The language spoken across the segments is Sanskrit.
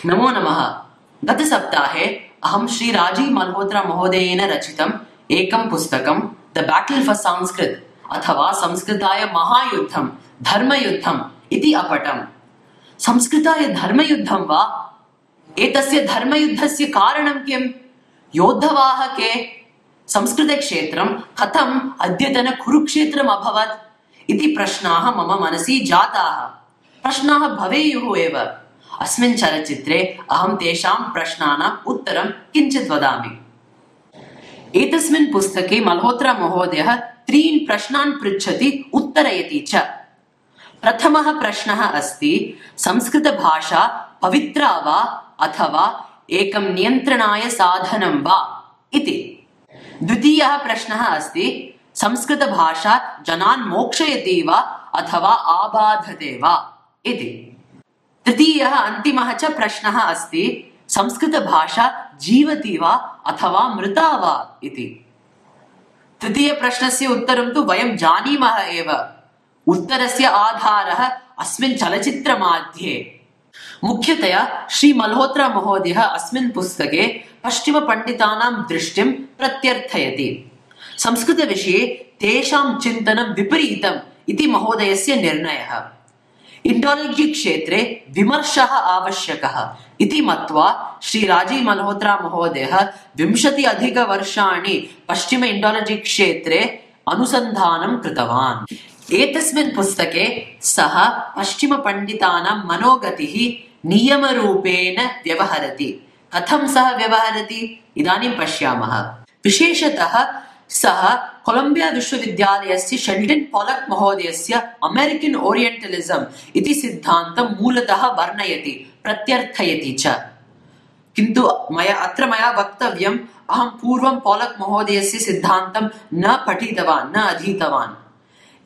नमो नमः। गतसप्ताहे अहं श्री राजीव मल्होत्रा महोदयेन रचितम् एकं पुस्तकं द बैटल फॉर संस्कृत अथवा संस्कृताय महायुद्धं धर्मयुद्धम् इति अपठम्। संस्कृताय धर्मयुद्धं वा? एतस्य धर्मयुद्धस्य कारणं किम्? योद्धवाः के? संस्कृतक्षेत्रं कथम् अद्यतन कुरुक्षेत्रम् अभवत् इति प्रश्नाः मम मनसि जाताः। प्रश्नाः भवेयुः एव। अस्मिन् चलच्चित्रे अहं तेषां प्रश्नानाम् उत्तरं किञ्चित् वदामि। एतस्मिन् पुस्तके मल्होत्रा महोदयः त्रीन् प्रश्नान् पृच्छति, उत्तरयति च। प्रथमः प्रश्नः अस्ति, संस्कृतभाषा पवित्रा वा अथवा एकं नियन्त्रणाय साधनं वा इति। द्वितीयः प्रश्नः अस्ति, संस्कृतभाषा जनान् मोक्षयति वा अथवा आबाधते वा इति। तृतीयः अन्तिमः च प्रश्नः अस्ति, संस्कृतभाषा जीवति वा अथवा मृता वा इति। तृतीयप्रश्नस्य उत्तरं तु वयं जानीमः एव। उत्तरस्य आधारः अस्मिन् चलच्चित्रमध्ये। मुख्यतया श्री मल्होत्रा महोदयः अस्मिन् पुस्तके पश्चिमपण्डितानां दृष्टिं प्रत्यर्थयति। संस्कृतविषये तेषां चिन्तनं विपरीतम् इति महोदयस्य निर्णयः। इंडोलॉजी क्षेत्रे विमर्शः आवश्यकः इति मत्वा श्री राजीव मल्होत्रा महोदयः 20 अधिकवर्षाणि पश्चिम इंडोलॉजी क्षेत्रे अनुसन्धानं कृतवान्। एतस्मिन् पुस्तके सः पश्चिम पंडितानां मनोगतिः नियमरूपेण व्यवहरति। कथं सः व्यवहरति इदानीं पश्यामः। विशेषतः सः कोलंबिया विश्वविद्यालयस्य शेल्डन् पोलक् महोदयस्य अमेरिकन् ओरियेण्टलिज्म् इति सिद्धान्तं मूलतः वर्णयति, प्रत्यर्थयति च। किन्तु मया वक्तव्यम्, अहं पूर्वं पोलक् महोदयस्य सिद्धान्तं न पठितवान्, न अधीतवान्।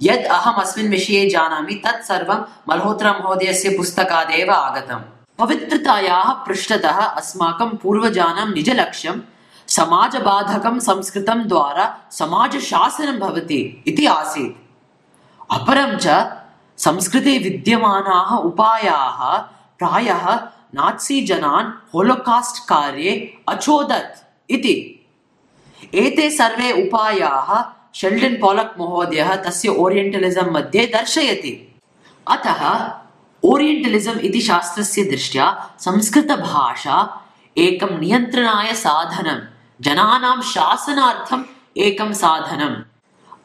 यद् अहम् अस्मिन् विषये जानामि तत् सर्वं मल्होत्रा महोदयस्य पुस्तकादेव आगतम्। पवित्रतायाः पृष्ठतः अस्माकं पूर्वजानां निजलक्ष्यं समाजबाधकं संस्कृतं द्वारा समाजशासनं भवति इति आसीत्। अपरं च संस्कृते विद्यमानाः उपायाः प्रायः नात्सी जनान् होलोकास्ट् कार्ये अचोदत् इति। एते सर्वे उपायाः शेल्डन् पोलक् महोदयः तस्य ओरियेण्टलिज्म् मध्ये दर्शयति। अतः ओरियेण्टलिज्म् इति शास्त्रस्य दृष्ट्या संस्कृतभाषा एकं नियन्त्रणाय साधनं, जनानां शासनार्थम् एकं साधनम्।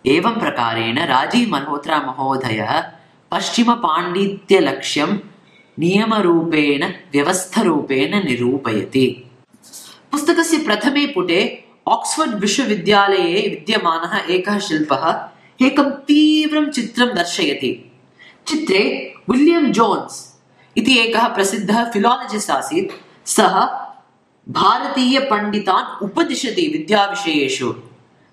एवं प्रकारेण राजीव मल्होत्रा महोदयः पश्चिमपाण्डित्यलक्ष्यं नियमरूपेण व्यवस्थरूपेण निरूपयति। पुस्तकस्य प्रथमे पुटे ऑक्सफोर्ड विश्वविद्यालये विद्यमानः एकः शिल्पः एकं तीव्रं चित्रं दर्शयति। चित्रे विलियम् जोन्स् इति एकः प्रसिद्धः फिलोलजिस्ट् आसीत्। सः भारतीय पंडितान् उपदिशति विद्याविषयेषु।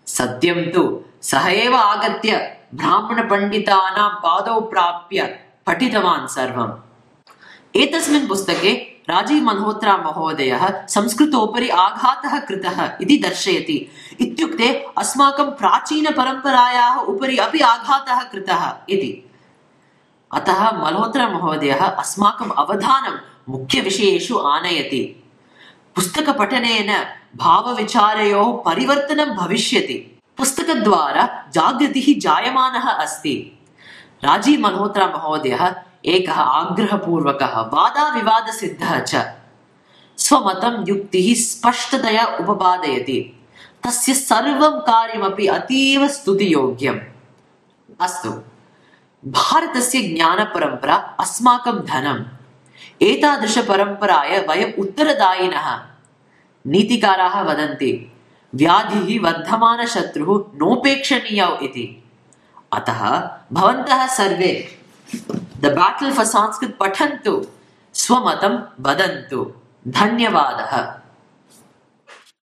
सत्यं तु सः एव आगत्य ब्राह्मण पंडितानां पादौ प्राप्य पठितवान् सर्वम्। एतस्मिन् पुस्तके राजीव मल्होत्रा महोदयः संस्कृतोपरि आघातः कृतः इति दर्शयति। इत्युक्ते अस्माकं प्राचीनपरम्परायाः उपरि अपि आघातः कृतः इति। अतः मल्होत्रा महोदयः अस्माकम् अवधानं मुख्यविषयेषु आनयति। पुस्तकपठनेन भावविचारयोः परिवर्तनं भविष्यति। पुस्तकद्वारा जागृतिः जायमानः अस्ति। राजीव मल्होत्रा महोदयः एकः आग्रहपूर्वकः वादाविवादसिद्धः च। स्वमतं युक्तिः स्पष्टतया उपपादयति। तस्य सर्वं कार्यमपि अतीव स्तुतियोग्यम्। अस्तु, भारतस्य ज्ञानपरम्परा अस्माकं धनम्। एतादृशपरम्पराय वयम् उत्तरदायिनः। नीतिकाराः वदन्ति, व्याधिः वर्धमानशत्रुः नोपेक्षणीयौ इति। अतः भवन्तः सर्वे द बैटल फॉर संस्कृत पठन्तु, स्वमतं वदन्तु। धन्यवादः।